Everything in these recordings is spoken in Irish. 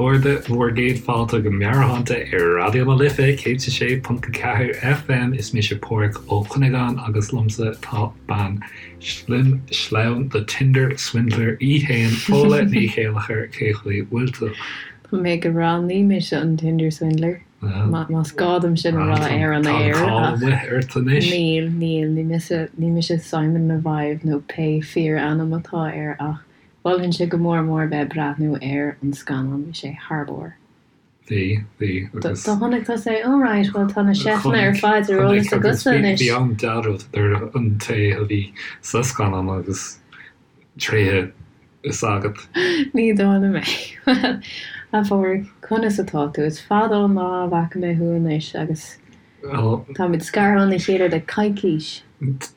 chairde, bhur gcéad fáilte go Meabhairshláinte ar Raidió na Life 106.4 FM. Is mise Páraic Ó Cuinneagáin agus liomsa tá bean slim sleamhain The Tinder Swindler í fhéin, Fódhla Ní Chéilleachair, cé chaoi bhfuil tú? Tá mé go breá, ní mise an Tinder Swindler, más gá dom sin a rá ar an aer, Tá an cáil amuigh ort anois. Níl, níl, ní mise, ní mise Simon Leviev nó pé fíor-ainm atá air ach Mholfainnse go mór mór bheith ag breathnú ar an scannán, bhí sé thar barr. Bhí, bhí, agus. Do chonaic tusa é? Oh right, bhuel tá na seifteanna ar fad ar eolas agatsa anois. Bhí an-dealramh idir an té a bhí sa scannán agus tréithe is agat. Ní dóigh liom é. Bhuel, a Pháraic, conas atá tú? Is fada an lá a bhfaca mé thú anois agus. Táimid scartha óna chéile le coicís.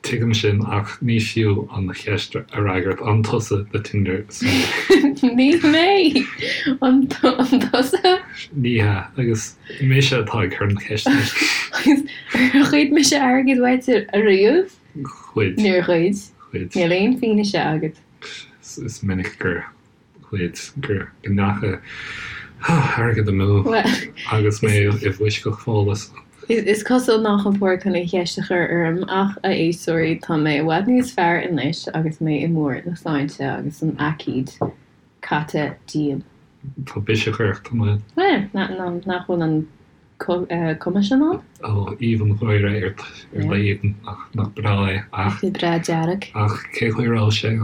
Tuigim sin, ach ní fiú an cheist a fhreagairt. An tusa the Tinder Swindler? Ní mé! An tusa? Ní hea, agus mise atá ag cur na ceiste anois. Agus ar ghoid mise airgead uait ariamh? Ghoid. Níor ghoid. Ghoid. Níl aon fianaise agat. Is minic gur. ghoid, gur go ndeacha airgead amú agus mé i bhfoisceacht Fódhla. Is cosúil nach bhfuil Páraic chun an cheist a chur orm ach, a éisteoirí, tá mé i bhfad níos fearr anois agus mé i mbarr na sláinte agus an aicíd caite díom. Tá biseach ort, an bhfuil? Bhuel, nach bhfuil an cuma sin ann? Ó, aoibh an gháire ort ar d'éadan, nach breá é, ach. Bhí breá dearg. Ach cé chaoi a raibh sé,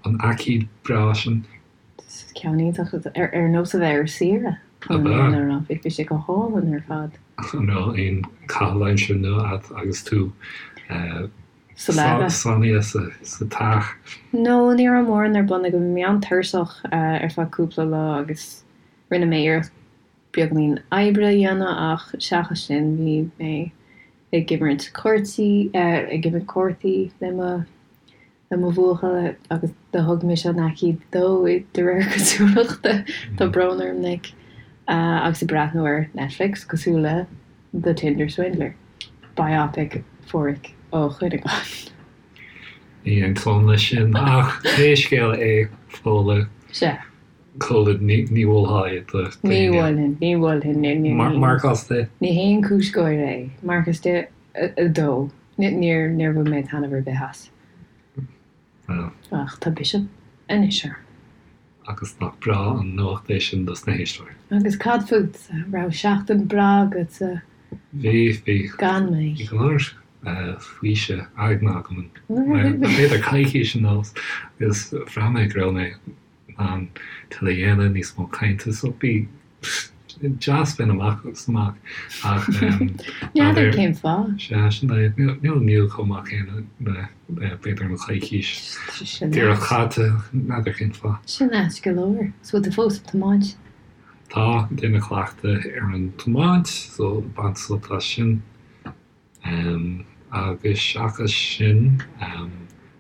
an aicíd breá sin? Ceann iontach, ar nós a bheith ar saoire, chun an fhírinne a rá. Bhí sé go hálainn ar fad. An raibh aon chaitheamh aimsire nua agat agus tú Sa leaba. Sáinnithe sa teach? No, ní raibh mórán ar bun agam. Bhí mé an-tuirseach ar feadh cúpla lá agus rinne mé iarracht beagáinín oibre a dhéanamh ach seachas sin bhí mé ag imirt cártaí, ag imirt cártaí le mo, le mo bhuachaill agus do thug mise an aicíd dó de réir cosúlachta, tá brón orm Nick, agus ag breathnú ar Netflix cosúil le The Tinder Swindler, biopic Pháraic Ó Cuinneagáin. Ní aontóinn leis sin ach pé scéal é, Fódhla. Sea. Covid, ní mholfá é do Ní mholfainn, ní mholfainn, ní, ní, ní. Marcás de? Ní haon cúis gáire é. Marcás de 2. Níor, níor bhain mé taitneamh ar bith as. Ach tá biseach anois orm. Agus nach breá an nuacht é sin dos na héisteoirí. Agus cad fútsa? Raibh seachtain breá agatsa Bhí, bhí. gan mé? Bhí go leor faoiseamh aigne agam an, b'fhéidir coicís anuas agus bhraith mé go raibh mé in ann tuilleadh a dhéanamh, níos mó cainte, so bhí deas bheith amach agus amach ach N'fheadar cén fáth. Sea, sin é. Níl níl chomh maith céanna le b'fhéidir an choicís díreach caite, n'fheadar cén fáth. Sin ait go leor. So bhfuil tú fós ag tiomáint? Tá, ag déanamh cleachtadh ar an tiomáint, so baint sult as sin. Agus seachas sin,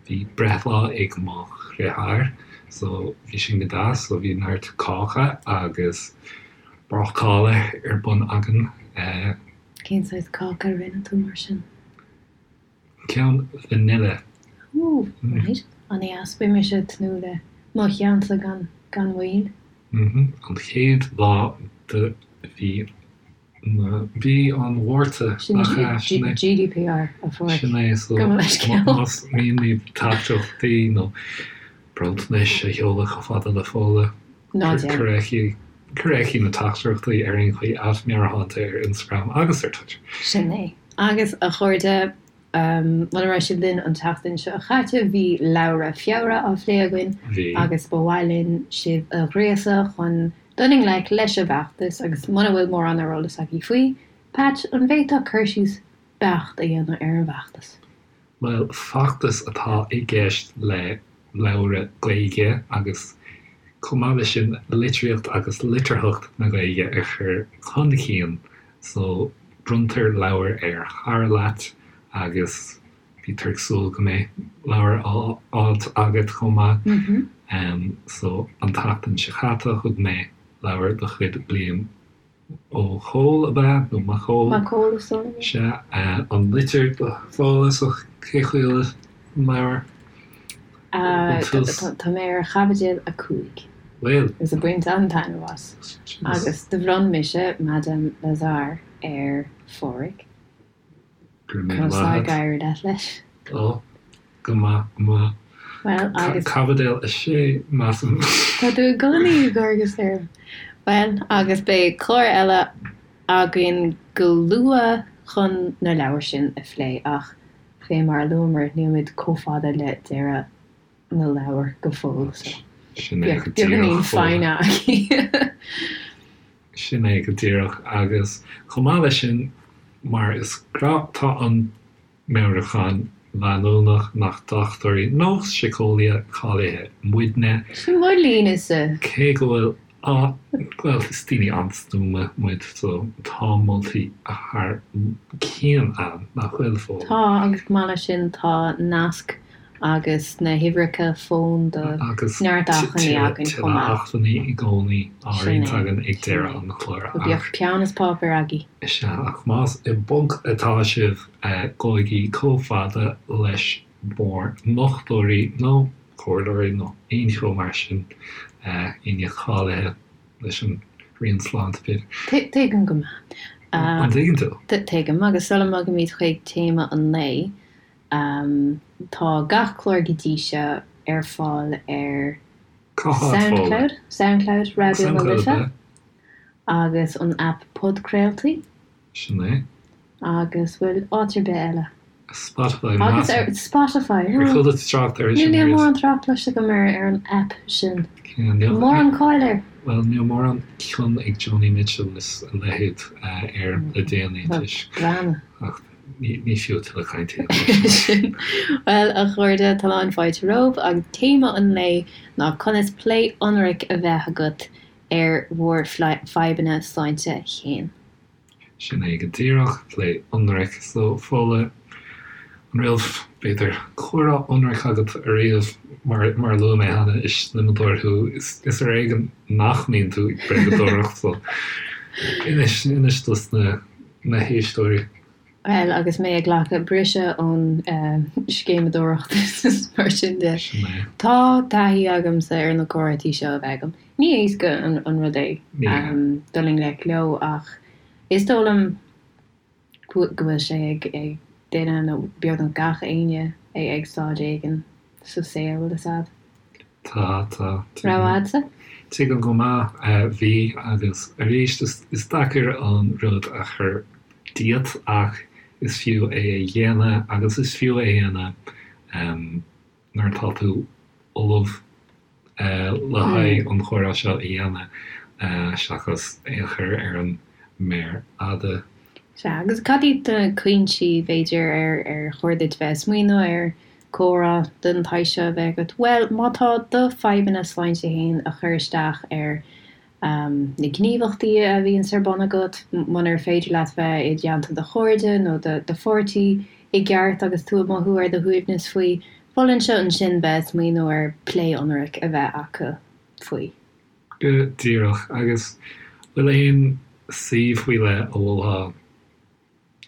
bhí breithlá ag mo dhriotháir, so bhí sin go deas, so bhí neart cáca agus bácála ar bun againn. Cén saghas cáca a rinne tú mar sin? Ceann vanilla. Ooh, right. An-deas. Beidh mise ag tnúth le mo cheannsa gan gan mhoill. Mhm. An chéad lá de mhí Mhí an Mhárta, nach ea? Sin é. GDPR, a Pháraic. Sin é, so Gabh mo leithscéal. más mian libh teachtaireachtaí nó bronntanais a sheoladh chomh fada le Fódhla, Ná déan. cuir aici, cuir aici na teachtaireachtaí ar aon chaoi, @meabhairshláinte ar Instagram agus ar Twitter. Sin é. Agus, a chairde, Muna raibh sibh linn an tseachtain seo chaite bhí Leabhra Feabhra á phlé againn Bhí. agus ba mhaith linn sibh a ghríosadh chun dul i ngleic leis an bhfeachtas agus muna bhfuil mórán ar eolas agaibh faoi, Patch, an bhféadfá cur síos beacht a dhéanamh ar an bhfeachtas? Bhuel, feachtas atá i gceist le leabhra Gaeilge agus chomh maith leis sin litríocht agus litearthacht na Gaeilge a chur chun cinn so bronntar leabhar ar chara leat agus bítear ag súil go mbeidh leabhar á fháilt agat chomh maith. So an tseachtain seo chaite thug mé leabhar de chuid Liam Ó Cóil ab ea? Nó Mac Cóil? Mac Cóil is dóigh liom. Sea, an litir do Fódhla so cé chaoi a bhfuil an leabhar? Tá mé ar chaibidil 5. Bhfuil? Agus ag baint an-taitneamh as. Agus do bhronn mise Madame Lazare ar Pháraic. Go raibh míle Conas maith tá ag agat. éirí leat leis? Ó, go maith, go maith. Bhuel, agus. Caibidil 6, measaim. Tá tú i gcónaí ag cur gus orm. Bhuel, agus beidh clár eile againn go luath chun na leabhair sin a phlé ach fé mar a luamar, nílimid chomh fada le deireadh na leabhar go fóill so Sin é bíodh go beagáinín díreach, Fódhla. foighne agaibh. Sin é go díreach. Agus chomh maith leis sin, mar is gnách, tá an meabhrúchán leanúnach nach dochtúirí nó síceolaithe cáilithe muidne. Sin mo línese. Cé go bhfuil bhuel, is daoine an-stuama muid so tá moltaí thar cionn ann, nach bhfuil, Fódhla? Tá, agus chomh maith leis sin tá nasc agus na huimhreacha fóin do Agus neart acmhainní againn chomh tuilleadh maith. acmhainní i gcónaí á Sin roinnt é, againn ag sin deireadh é. an chláir So bíodh ach. peann is páipéar agaibh. Is ea, ach más i bponc atá sibh, gabhaigí chomh fada leis bhur ndochtúirí nó comhairleoirí nó aon cheo mar sin, éinne cáilithe leis an Roinn Sláinte, b'fhéidir. Tuigim go maith. An dtuigeann tú? Tuigim, agus sula mbogaimid chuig téama an lae, tá gach clár go dtí seo ar fáil ar Cá háit, Fódhla? Soundcloud, Soundcloud Raidió na Soundcloud, Life, ab ea? agus an aip podchraoltaí. Sin é. Agus bhfuil áit ar bith eile? Spotify, Agus ar measaim. Spotify, Ar chuala tú trácht air sin Níl riamh? mórán trácht cloiste agam ar ar an aip sin. Níl Mórán cáil air. Bhuel, níl mórán cion ag Joni Mitchell is a leithéid air le déanaí toisc. Breathnú. Ach ní fiú tuilleadh cainte a dhéanamh sin. Bhuel, a chairde, tá lán fáilte romhaibh agus téama an lae ná conas plé ionraic a bheith agat ar bhur fadhbanna sláinte féin. Sin é go díreach, plé ionraic. So, Fódhla, an raibh, b'fhéidir, comhrá ionraic agat ariamh? Mar, mar a luaigh mé cheana, is sliomadóir thú. Is, is ar éigean nach mbíonn tú ag bréagadóireacht, so inis, inis dos na, na héisteoirí. Bhuel, agus mé ag glacadh briseadh ón scéimeadóireacht is mar sin de, Sin é. tá taithí agamsa ar na comhráití seo a bheith agam. Ní éasca an rud é dul i ngleic leo ach is dóigh liom go bhfuil sé ag duine nó beagnach gach éinne ag staid éigin sa saol, bhfuil fhios a'd. Tá, tá. Raibh a'dsa? Tuigim go maith. Bhí agus arís is deacair an rud a chur díot ach is fiú é a dhéanamh agus is fiú é a dhéanamh nuair atá tú ullamh le haghaidh an chomhrá seo a dhéanamh seachas é a chur ar an méar fhada. Sea, agus cad iad na cúinsí, b'fhéidir, ar ar chóir duit bheith ag smaoineamh ar comhrá den tsaghas seo a bheith agat? Bhuel, má tá do fadhbanna sláinte féin ag cur isteach ar na gníomhaíochtaí a bhíonns ar bun agat, munar féidir leat bheith i dteannta do chairde nó do pháirtí i gceart agus tú ag mothú ar do shuaimhneas faoi, mholfainnse ansin bheith ag smaoineamh ar plé ionraic a bheith acu faoi. Go díreach. Agus bhfuil aon suíomh faoi leith a mholfá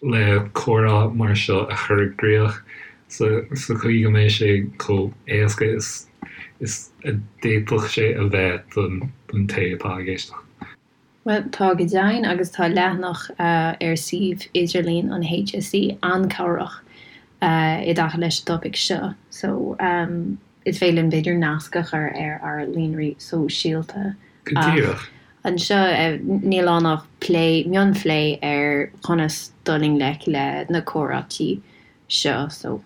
le comhrá mar seo a chur i gcrích sa chaoi go mbeidh sé chomh éasca is is a d'fhéadfadh sé a bheith don té atá ag éisteacht. Bhuel, tá go deimhin, agus tá leathanach ar suíomh idirlín an HSE an-cabhrach i dtaca leis an dtopaic seo. So, is féidir linn b'fhéidir nasc a chur ar ár líonraí sóisialta. Go díreach. Anseo, níl ann ach plé, mionphlé ar chonas dul i ngleic le na comhráití seo. So,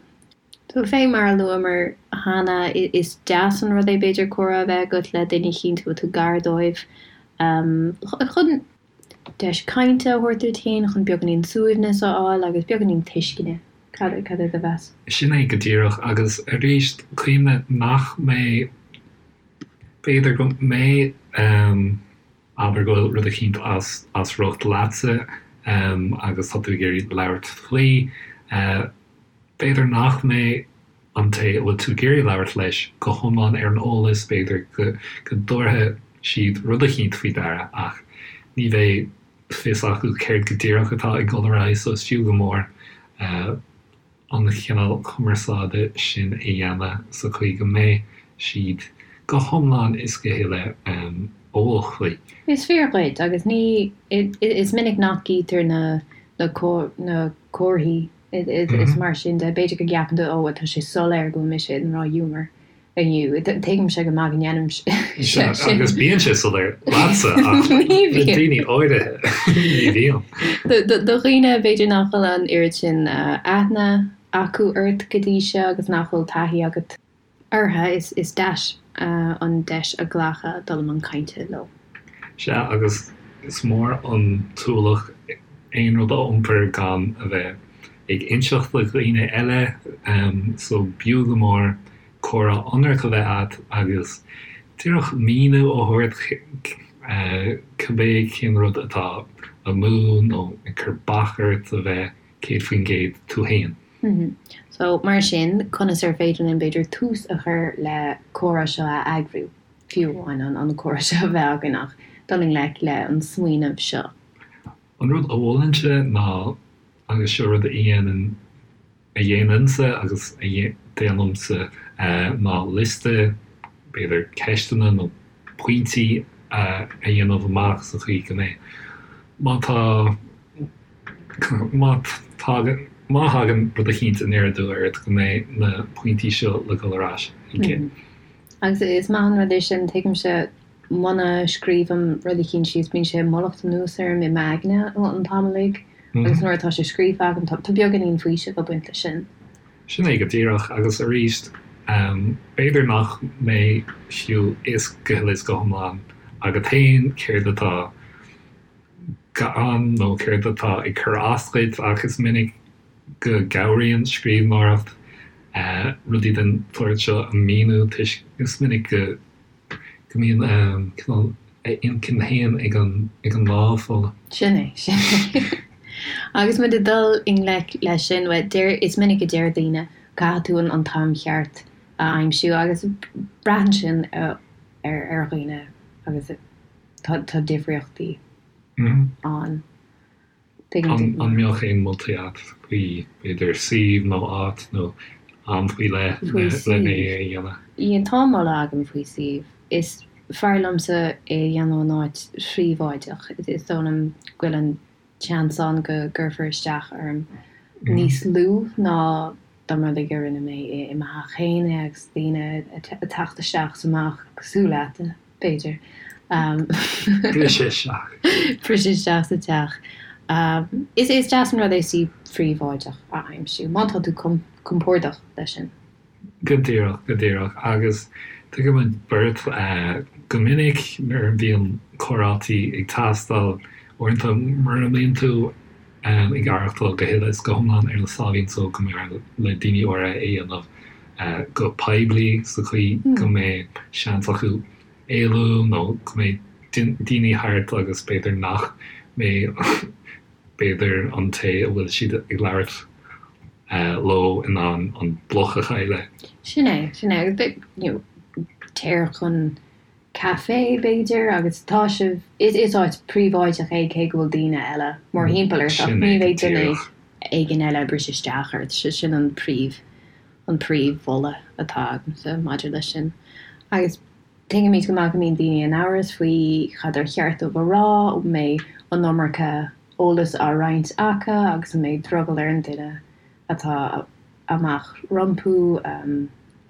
fé mar a luamar cheana, is deas an rud é b'fhéidir comhrá a bheith agat le duine eicínt a bhfuil tú gar dóibh chun deis cainte a thabhairt duit féin, chun beagáinín suaimhneas a fháil agus beagáinín tuisceana. Cad é do mheas? Sin é go díreach. Agus arís, cuimhnigh nach mbeidh, b'fhéidir go mbeidh, abair go bhfuil rud eicínt as as riocht leatsa agus tá tú ag iarraidh labhairt faoi, b'fhéidir nach mbeidh an té a bhfuil tú ag iarraidh labhairt leis go hiomlán ar an eolas, b'fhéidir go go dtabharfaidh siad rud eicínt faoi deara ach ní bheidh fios acu céard go díreach atá ag dul ar aghaidh so is fiú go mór an chineál cumarsáide sin a dhéanamh sa chaoi go mbeidh siad. go hiomlán is go huile eolach faoi. Is fíor dhuit, agus ní, is minic nach gcítear na na comharthaí is mar sin de. B'fhéidir go gceapann tú, ó, tá sé soiléir go bhfuil mise i ndrochghiúmar inniu. Tuigimse go maith go ndéanaimse sin. Agus bíonn sé soiléir leatsa, ach le daoine áirithe, ní bhíonn. Do dhaoine, b'fhéidir nach bhfuil an oiread sin aithne acu ort go dtí seo agus nach bhfuil taithí agat orthu, is deas an deis a ghlacadh dul i mbun cainte leo. Sea, agus is mór an t-ualach aon rud a iompar gan a bheith ag inseacht do dhaoine eile, so b'fhiú go mór comhrá ionraic a bheith agat agus díreach míniú a thabhairt cibé cén rud atá amú nó ag cur bac ort a bheith 100% tú féin. So, mar sin, conas ar féidir linn, b'fhéidir, tús a chur le comhrá seo a eagrú, fiú amháin an comhrá seo a bheith againn ach dul i ngleic le an smaoineamh seo? An rud a mholfainnse ná, agus seo rud a dhéanann, a dhéanainnse agus a déanaimse, ná liosta, b'fhéidir ceisteanna nó pointí a dhéanamh amach sa chaoi go mbeidh, má tá, má tagann, má thagann rud eicínt aniar aduaidh ort go mbeidh na pointí seo le dhul ar ais chuige. Agus is maith an rud é sin, tuigimse muna scríobhaim rud eicínt síos bíonn sé ag mullacht anuas orm i m'aigne an t-am uilig agus nuair atá sé scríofa agam tá beagáinín faoisimh ag baint leis sin. Sin é go díreach agus arís b'fhéidir nach mbeidh fiú fhios go huile is go hiomlán agat féin céard atá ann nó céard atá ag cur as duit ach is minic go gcabhraíonn scríbhneoireacht rudaí den tsórt seo a mhíniú toisc is minic go go mbíonn cineál a intinn féin ag an ag an lámh fola. Sin é, sin é. Agus muid ag dul i ngleic leis sin, bhuel, deir, is minic a deir daoine, caithfidh tú an an t-am cheart a aimsiú agus braitheann sin ar ar dhaoine agus tá tá difríochtaí ann. An mbeadh aon moltaí agat faoi, b'fhéidir, suíomh nó áit nó am faoi leith lena é a dhéanamh? Yeah, tá moladh agam faoi suíomh. Is fearr liomsa é a dhéanamh in áit phríobháideach. Is dóigh liom go bhfuil an seans ann go gcuirfear isteach orm níos lú ná dá mba rud é go rinne mé i mo theach féin é agus daoine ag teacht isteach is amach cosúil leat, b'fhéidir. Briseadh isteach. Briseadh isteach sa teach. Is deas an rud é suíomh phríobháideach a aimsiú, má tá tú compordach leis sin. Go díreach, go díreach. Agus tuigimid beirt go minic nuair a bhíonn comhráití ag teastáil, uaireanta mura mbíonn tú ag aireachtáil go huile is go hiomlán ar na sáimhín só go mb'fhearr le daoine áirithe é a dhéanamh go poiblí sa chaoi go mbeidh seans acu éalú nó go mbeidh daoine thart agus b'fhéidir nach mbeidh b'fhéidir an té a bhfuil siad ag labhairt leo in ann an bloc a chailleadh. Sin é, sin é. Agus you know, téir chun caife, b'fhéidir, agus tá sibh, is, is áit príobháideach é cé go bhfuil daoine eile mórthimpeall ort ach ní bheidh duine éigin eile ag briseadh isteach ort. Sin an príomh, an príomh-mholadh atá agamsa maidir leis sin. Agus tuigimid go maith go mbíonn daoine in amhras faoi cad ar cheart dóibh a rá, an mbeidh an iomarca eolas á roinnt acu agus an mbeidh drogall ar an duine atá amach rompu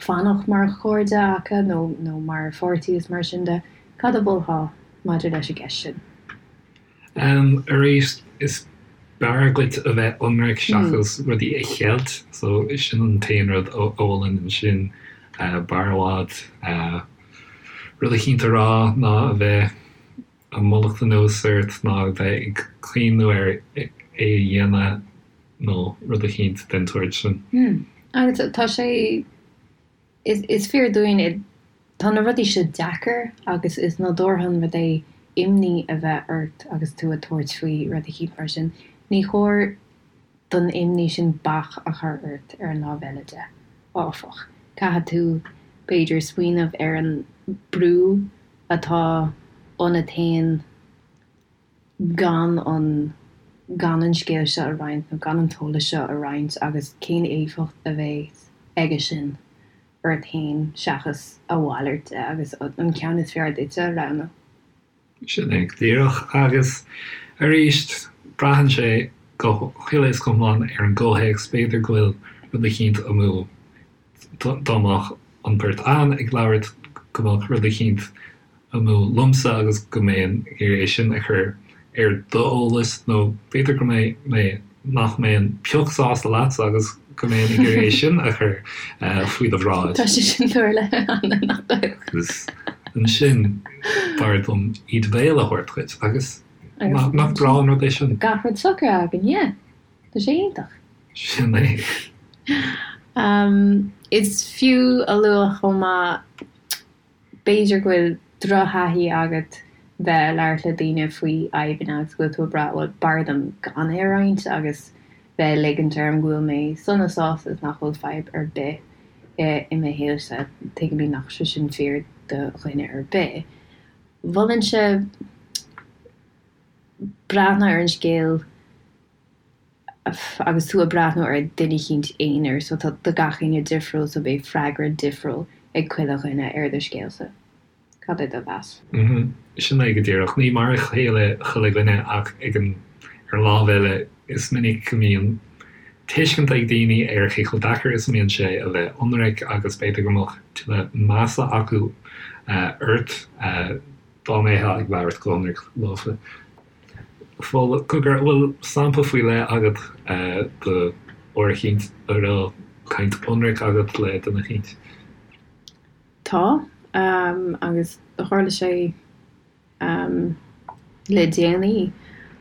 fanacht mar chairde acu nó nó mar pháirtí is mar sin de. Cad a mholfá maidir leis an gceist sin? Arís, is b'fhearr duit a bheith ionraic seachas rudaí a cheilt, so sin an t-aon rud a mholfainn ansin. B'fhearr i bhfad rud eicínt a rá ná a bheith ag mullacht anuas ort ná a bheith ag cuimhniú ar é a dhéanamh nó rud eicínt den tsórt sin. Agus tá sé, is fíor dúinn, tá na rudaí seo deacair agus is nádúrtha an rud é imní a bheith ort agus tú ag tabhairt faoi rud eicínt mar sin. Ní chóir don imní sin bac a chur ort ar an lámh eile de, áfach. Caithfidh tú, b'fhéidir, smaoineamh ar an brú atá ionat féin gan an gan an scéal seo a roinnt nó gan an t-eolas seo a roinnt agus cén éifeacht a bheidh aige sin. ort féin seachas a mhalairt de agus an ceann is fearr duitse a roghnú. Sin é go díreach. Agus arís, braitheann sé go huile is go hiomlán ar an gcomhthéacs. B'fhéidir go bhfuil rud eicínt amú, dá mbeadh an bheirt againn ag labhairt, go mbeadh rud eicínt amú liomsa agus go mbeinn ag iarraidh é sin a chur ar d'eolas, nó b'fhéidir go mbeidh mé, nach mbeinn pioc sásta leatsa agus go mbeinn ag iarraidh é sin a chur faoi do bhráid. Tá sé sin tarlaithe cheana, nach bhfuil? Agus ansin b'fhearr dom íde béil a thabhairt dhuit agus nach breá an rud é sin? Gach rud socraithe againn, yeah. Tá sé iontach. Sin é. Is fiú a lua chomh maith B'fhéidir go bhfuil drochthaithí agat bheith ag labhairt le daoine faoi fhadhbanna agus go bhfuil tú ag brath, bhuel, b'fhearr dom gan é a roinnt agus bheith ag ligint orm go bhfuil mé sona sásta is nach bhfuil fadhb ar bith i mo shaolsa. Tuigimid nach sé sin fíor do dhuine ar bith. Mholfainnse breathnú ar an scéal. agus tú ag breathnú ar duine eicínt aonair so tá tá gach éinne difriúil so beidh freagra difriúil ag chuile dhuine ar do scéalsa. Cad é do mheas? Mhm. Sin é go díreach. Ní mar a chéile chuile dhuine ach ag an ar an lámh eile is minic go mbíonn tuiscint ag daoine ar cé chomh deacair is a mbíonn sé a bheith ionraic agus b'fhéidir go mbeadh tuilleadh measa acu ort dá mbeifeá ag labhairt go hionraic leofa. Fódhla, cogar, an bhfuil sampla faoi leith agat de uair eicínt a raibh caint ionraic agat le duine eicínt? Tá, agus tharla sé le déanaí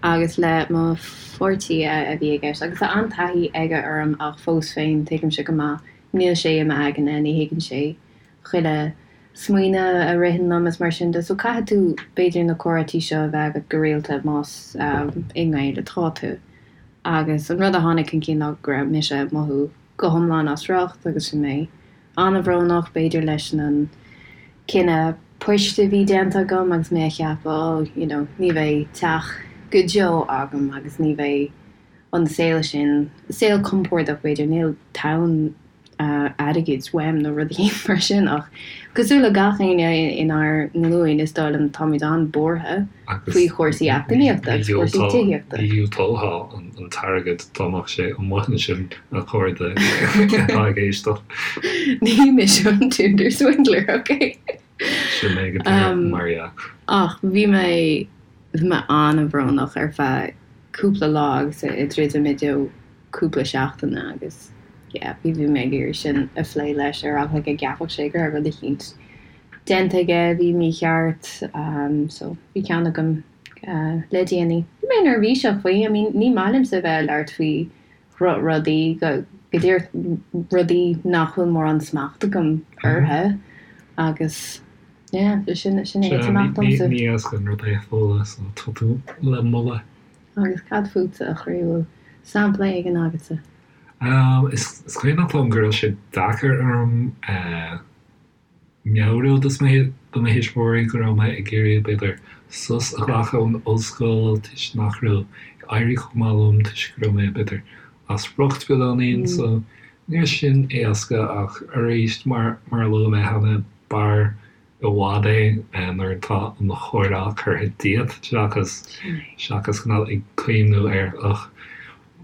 agus le mo pháirtí a bhí i gceist agus tá an-taithí aige orm ach fós féin tuigimse go maith níl sé i m'aigne, ní thuigeann sé chuile smaoineamh a ritheann liom is mar sin de. So caithfidh tú b'fhéidir na comhráití seo a bheith agat go rialta más i ngaol atá tú. Agus an rud a tháinig chun cinn ná go raibh mise ag mothú go hiomlán as riocht agus bhí mé an-bhrónach b'fhéidir leis an cinneadh poist a bhí déanta agam agus mé ag ceapadh oh you know ní bheidh teach go deo agam agus ní bheidh an saol sin, saol compordach b'fhéidir, níl tonn airgid uaim nó rudaí mar sin ach cosúil le gach éinne inár nglúin is dóigh liom táimid an-bhuartha faoi chúrsaí eacnamaíochta agus cúrsaí tithíochta. Ní dhiúltófá an t-airgead dá mbeadh sé amuigh ansin a chairde atá ag éisteacht. Ní mise an Tinder Swindler, ok? Sin é go díreach, mar dhea. Ach bhí mé bhí mé an-bhrónach ar feadh cúpla lá agus ag druidim i dtreo cúpla seachtaine agus yeah bhí bhí mé ag iarraidh sin a phlé leis ar eagla go gceapfadh sé go raibh rud eicínt déanta aige a bhí mícheart so bhí ceann agam le déanaí. Bhí mé neirbhíseach faoi, I mean ní maith liomsa a bheith ag labhairt faoi dhrochrudaí, go díreach rudaí nach bhfuil mórán smacht agam orthu agus yeah sin sin é is amach domsa. Ní éasca an rud é a Fódhla so tá tú le moladh. Agus cad fútsa, a chroí, bhfuil sampla éigin agatsa? Is cuimhneach liom go raibh sé deacair orm meabhrú do mo thuismitheoirí go raibh mé ag iarraidh, b'fhéidir, sos a ghlacadh ón ollscoil toisc nach raibh ag éirí chomh maith liom, toisc go raibh mé, b'fhéidir, as riocht beagáinín. So, ní raibh sin éasca ach arís, mar a luaigh mé cheana, b'fhearr i bhfad é nuair atá an chomhrá curtha díot seachas seachas cineál ag cuimhniú ar ach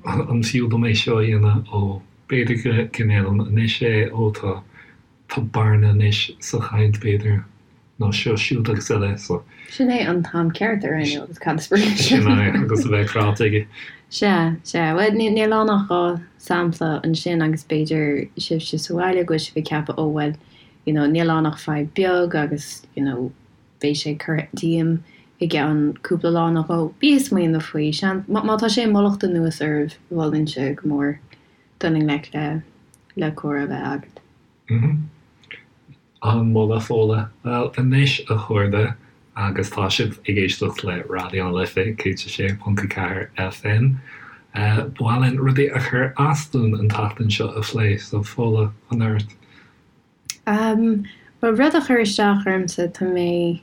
an fiú dom é seo a dhéanamh ó b'fhéidir go go ndéanaim anois é ó tá tá bearna anois sa chaint b'fhéidir nó seo siúd agus eile so. Sin é an t-am ceart a roghnú agus cad is brí leis sin? Sin é agus a bheith ráite aige. Sea, sea. Bhuel, níl ann ach 2 sampla ansin agus b'fhéidir sibhse sa bhaile go bhfuil sibh ag ceapadh ó bhuel you know níl ann ach fadhb beag agus you know beidh sé curtha díom i gceann cúpla lá nó dhó. Bí ag smaoineamh faoi. Seans, má tá sé ag mullacht anuas oraibh, mholfainnse go mór dul i ngleic le le comhrá a bheith agat. Mm-hmm. An-mholadh, Fódhla. Bhuel, anois a chairde, agus tá sibh ag éisteacht le Raidió na Life 106.4 FM, ba mhaith linn rudaí a chuir as dúinn an tseachtain seo a phlé, so Fódhla, chun ort. Bhuel, rud a chuir isteach ormsa, tá mé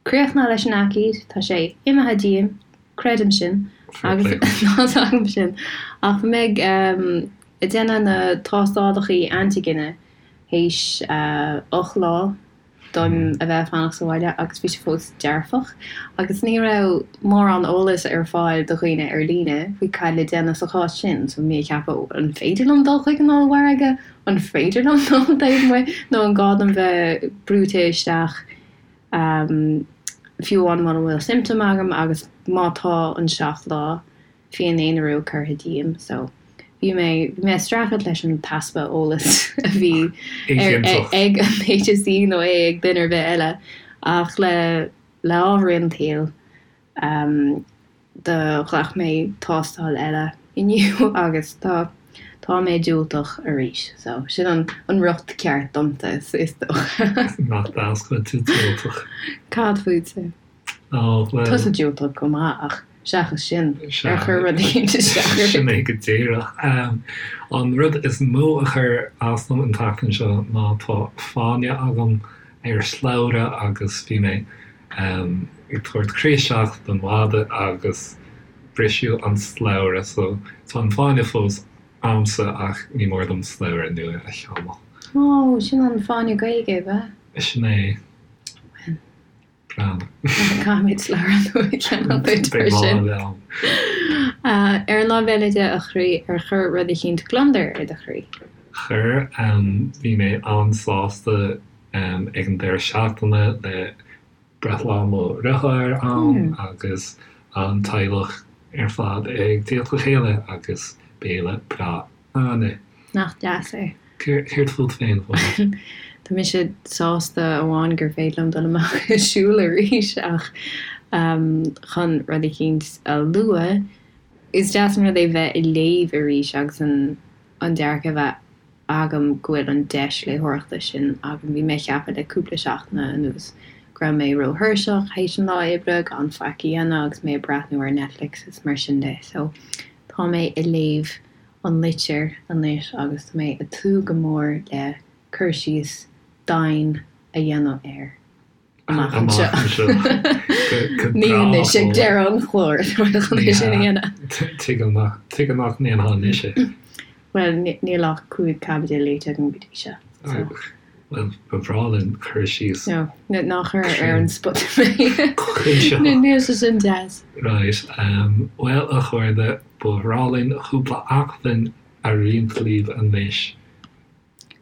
críochnaithe leis an aicíd, tá sé imithe díom, creidim sin, agus tá's agam sin, ach bhí mé ag déanamh na tástálacha antaigine. Théis 8 lá dom a bheith ag fanacht sa bhaile agus bhí sé fós dearfach agus ní raibh mórán eolais ar fáil do dhaoine ar líne faoi cad le déanamh sa chás sin. So bhí mé ag ceapadh an féidir liom dul chuig an ollmhargadh? An féidir liom dul taobh amuigh? Nó an gá dom bheith brúite isteach fiú amháin mura bhfuil symptom agam agus má tá an 7 lá féin-aonarú curtha díom so bhí mé bhí mé ag streachailt leis an t-easpa eolais a bhí ag an HSE nó é ag duine ar bith eile ach le le ámharaí an tsaoil do ghlac mé tástáil eile inniu agus tá tá mé diúltach arís so sin an an riocht ceart domsa is dócha. Nach deas go bhfuil tú diúltach. Cad fútsa? Ó, bhuel. Tusa diúltach go maith ach seachas sin, ar chuir rud éicint isteach ort? Sin é go díreach. An rud is mó a chuir as dom an tseachtain seo ná tá fáinne agam ar shlabhra agus bhí mé ag tabhairt croí isteach don mhadadh agus briseadh an slabhra so tá an fáinne fós a'msa ach ní mór dom slabhra nua a cheannach. Ó, sin an fáinne Gaeilge, ab ea? Sin é. Bhuel. Caithfimid slabhra nua a cheannach duit mar sin. Ar an lámh eile de, a chroí, ar chuir rud eicínt gliondar ar do chroí? Chuir. Bhí mé an-sásta ag an deireadh seachtaine le breithlá mo dheartháir ann agus an teaghlach ar fad ag tíocht le chéile agus béile breá ann. Nach deas é? Céard fút féin, Fódhla? Tá mise sásta amháin gur féidir liom dul amach ag siúl arís ach chun rud eicínt a lua, is deas an rud é bheith ag léamh arís agus an dearcadh a bheith agam go bhfuil an deis léitheoireachta sin agam. Bhí mé ag ceapadh le cúpla seachtaine anuas go raibh mé róthuirseach théis an lá oibre gan faic a dhéanamh agus mé ag breathnú ar Netflix is mar sin de so tá mé ag léamh an litir anois agus tá mé ag tnúth go mór le cur síos domhain a dhéanamh air amach anseo. Ní anois ag deireadh an chláir atá mé chun é sin a dhéanamh. Tuigim nach ndéanfá anois é. Bhuel, níl ach 5 caibidil léite agam go dtí seo. Bhuel, ba bhreá linn cur síos. No, ná cuir ar an spota mé. Níl sé sin deas. Right. Bhuel, a chairde, ba bhreá linn cúpla acmhainn a roinnt libh anois.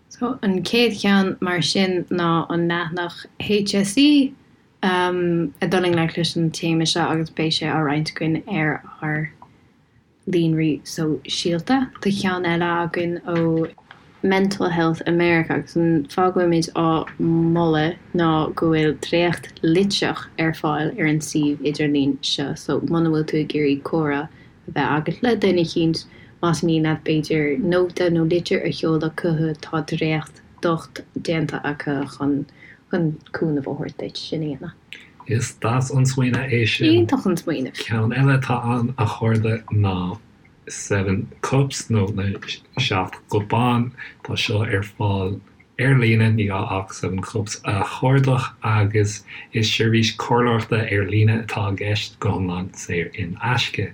So, an chéad cheann mar sin ná an leathanach HSE ag dul i ngleic leis an téama seo agus beidh sé á roinnt againn ar ár líonraí sóisialta. Tá ceann eile againn ó Mental Health America agus an fáth go bhfuilimid á moladh ná go bhfuil dréacht litreach ar fáil ar an suíomh idirlín seo so muna bhfuil tú ag iarraidh comhrá a bheith agat le duine eicínt, más mian leat b'fhéidir nóta nó litir a sheoladh chucu tá dréacht docht déanta acu chun chun cúnamh a thabhairt duit sin a dhéanamh. Is deas an smaoineamh é sin. Iontach an smaoineamh. Ceann eile atá ann, a chairde, ná Seven Cups nó na Seacht gCupán. Tá seo ar fáil ar líne, ní gá ach Seven Cups a chuardach agus is seirbhís comhairleoireachta ar líne atá i gceist, go hiomlán saor in aisce.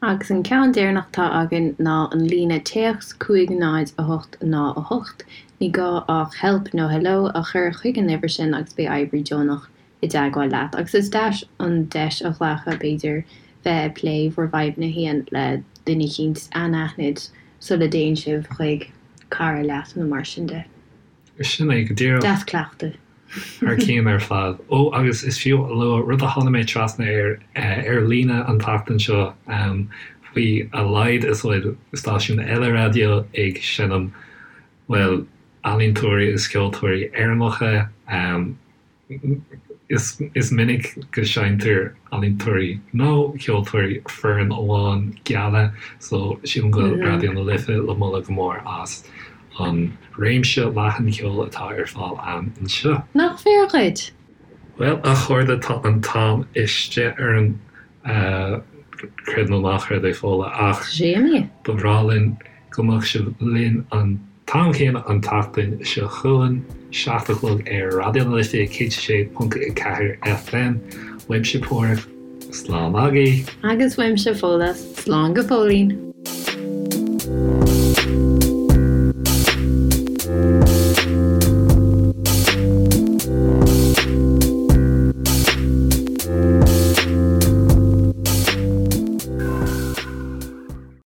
Agus an ceann deireanach atá againn ná an líne téacs 5 0 8 0 8. Ní gá ach help nó hello a chur chuig an uimhir sin agus beidh oibrí deonach i dteagmháil leat. Agus is deas an deis a ghlacadh, b'fhéidir, bheith ag plé bhur bhfadhbanna féin le duine eicínt anaithnid sula dtéann sibh chuig cara leat nó mar sin de. Sin é go díreach. Deas cleachtadh. Thar cionn ar fad. Ó, agus is fiú a lua rud a tháinig mé trasna air ar líne an tseachtain seo, faoi a laghad is a bhfuil stáisiún eile raidió ag seinm, bhuel, ealaíontóirí agus ceoltóirí Éireannacha. Is minic go seinntear ealaíontóirí nó ceoltóirí fireann amháin geala so sílim go bhfuil Raidió na Life le moladh go mór as an réimse leathan ceoil atá ar fáil ann anseo. Nach fíor dhuit? Bhuel, a chairde, tá an t-am istigh orainn, creid nó ná creid é, Fódhla, ach ba bhreá linn go mbeadh sibh linn an t-am céanna an tseachtain seo chugainn, 7 a chlog ar Raidió na Life 106.4 FM. Uaimse Páraic, slán agaibh! Agus uaimse Fódhla, slán go fóillín!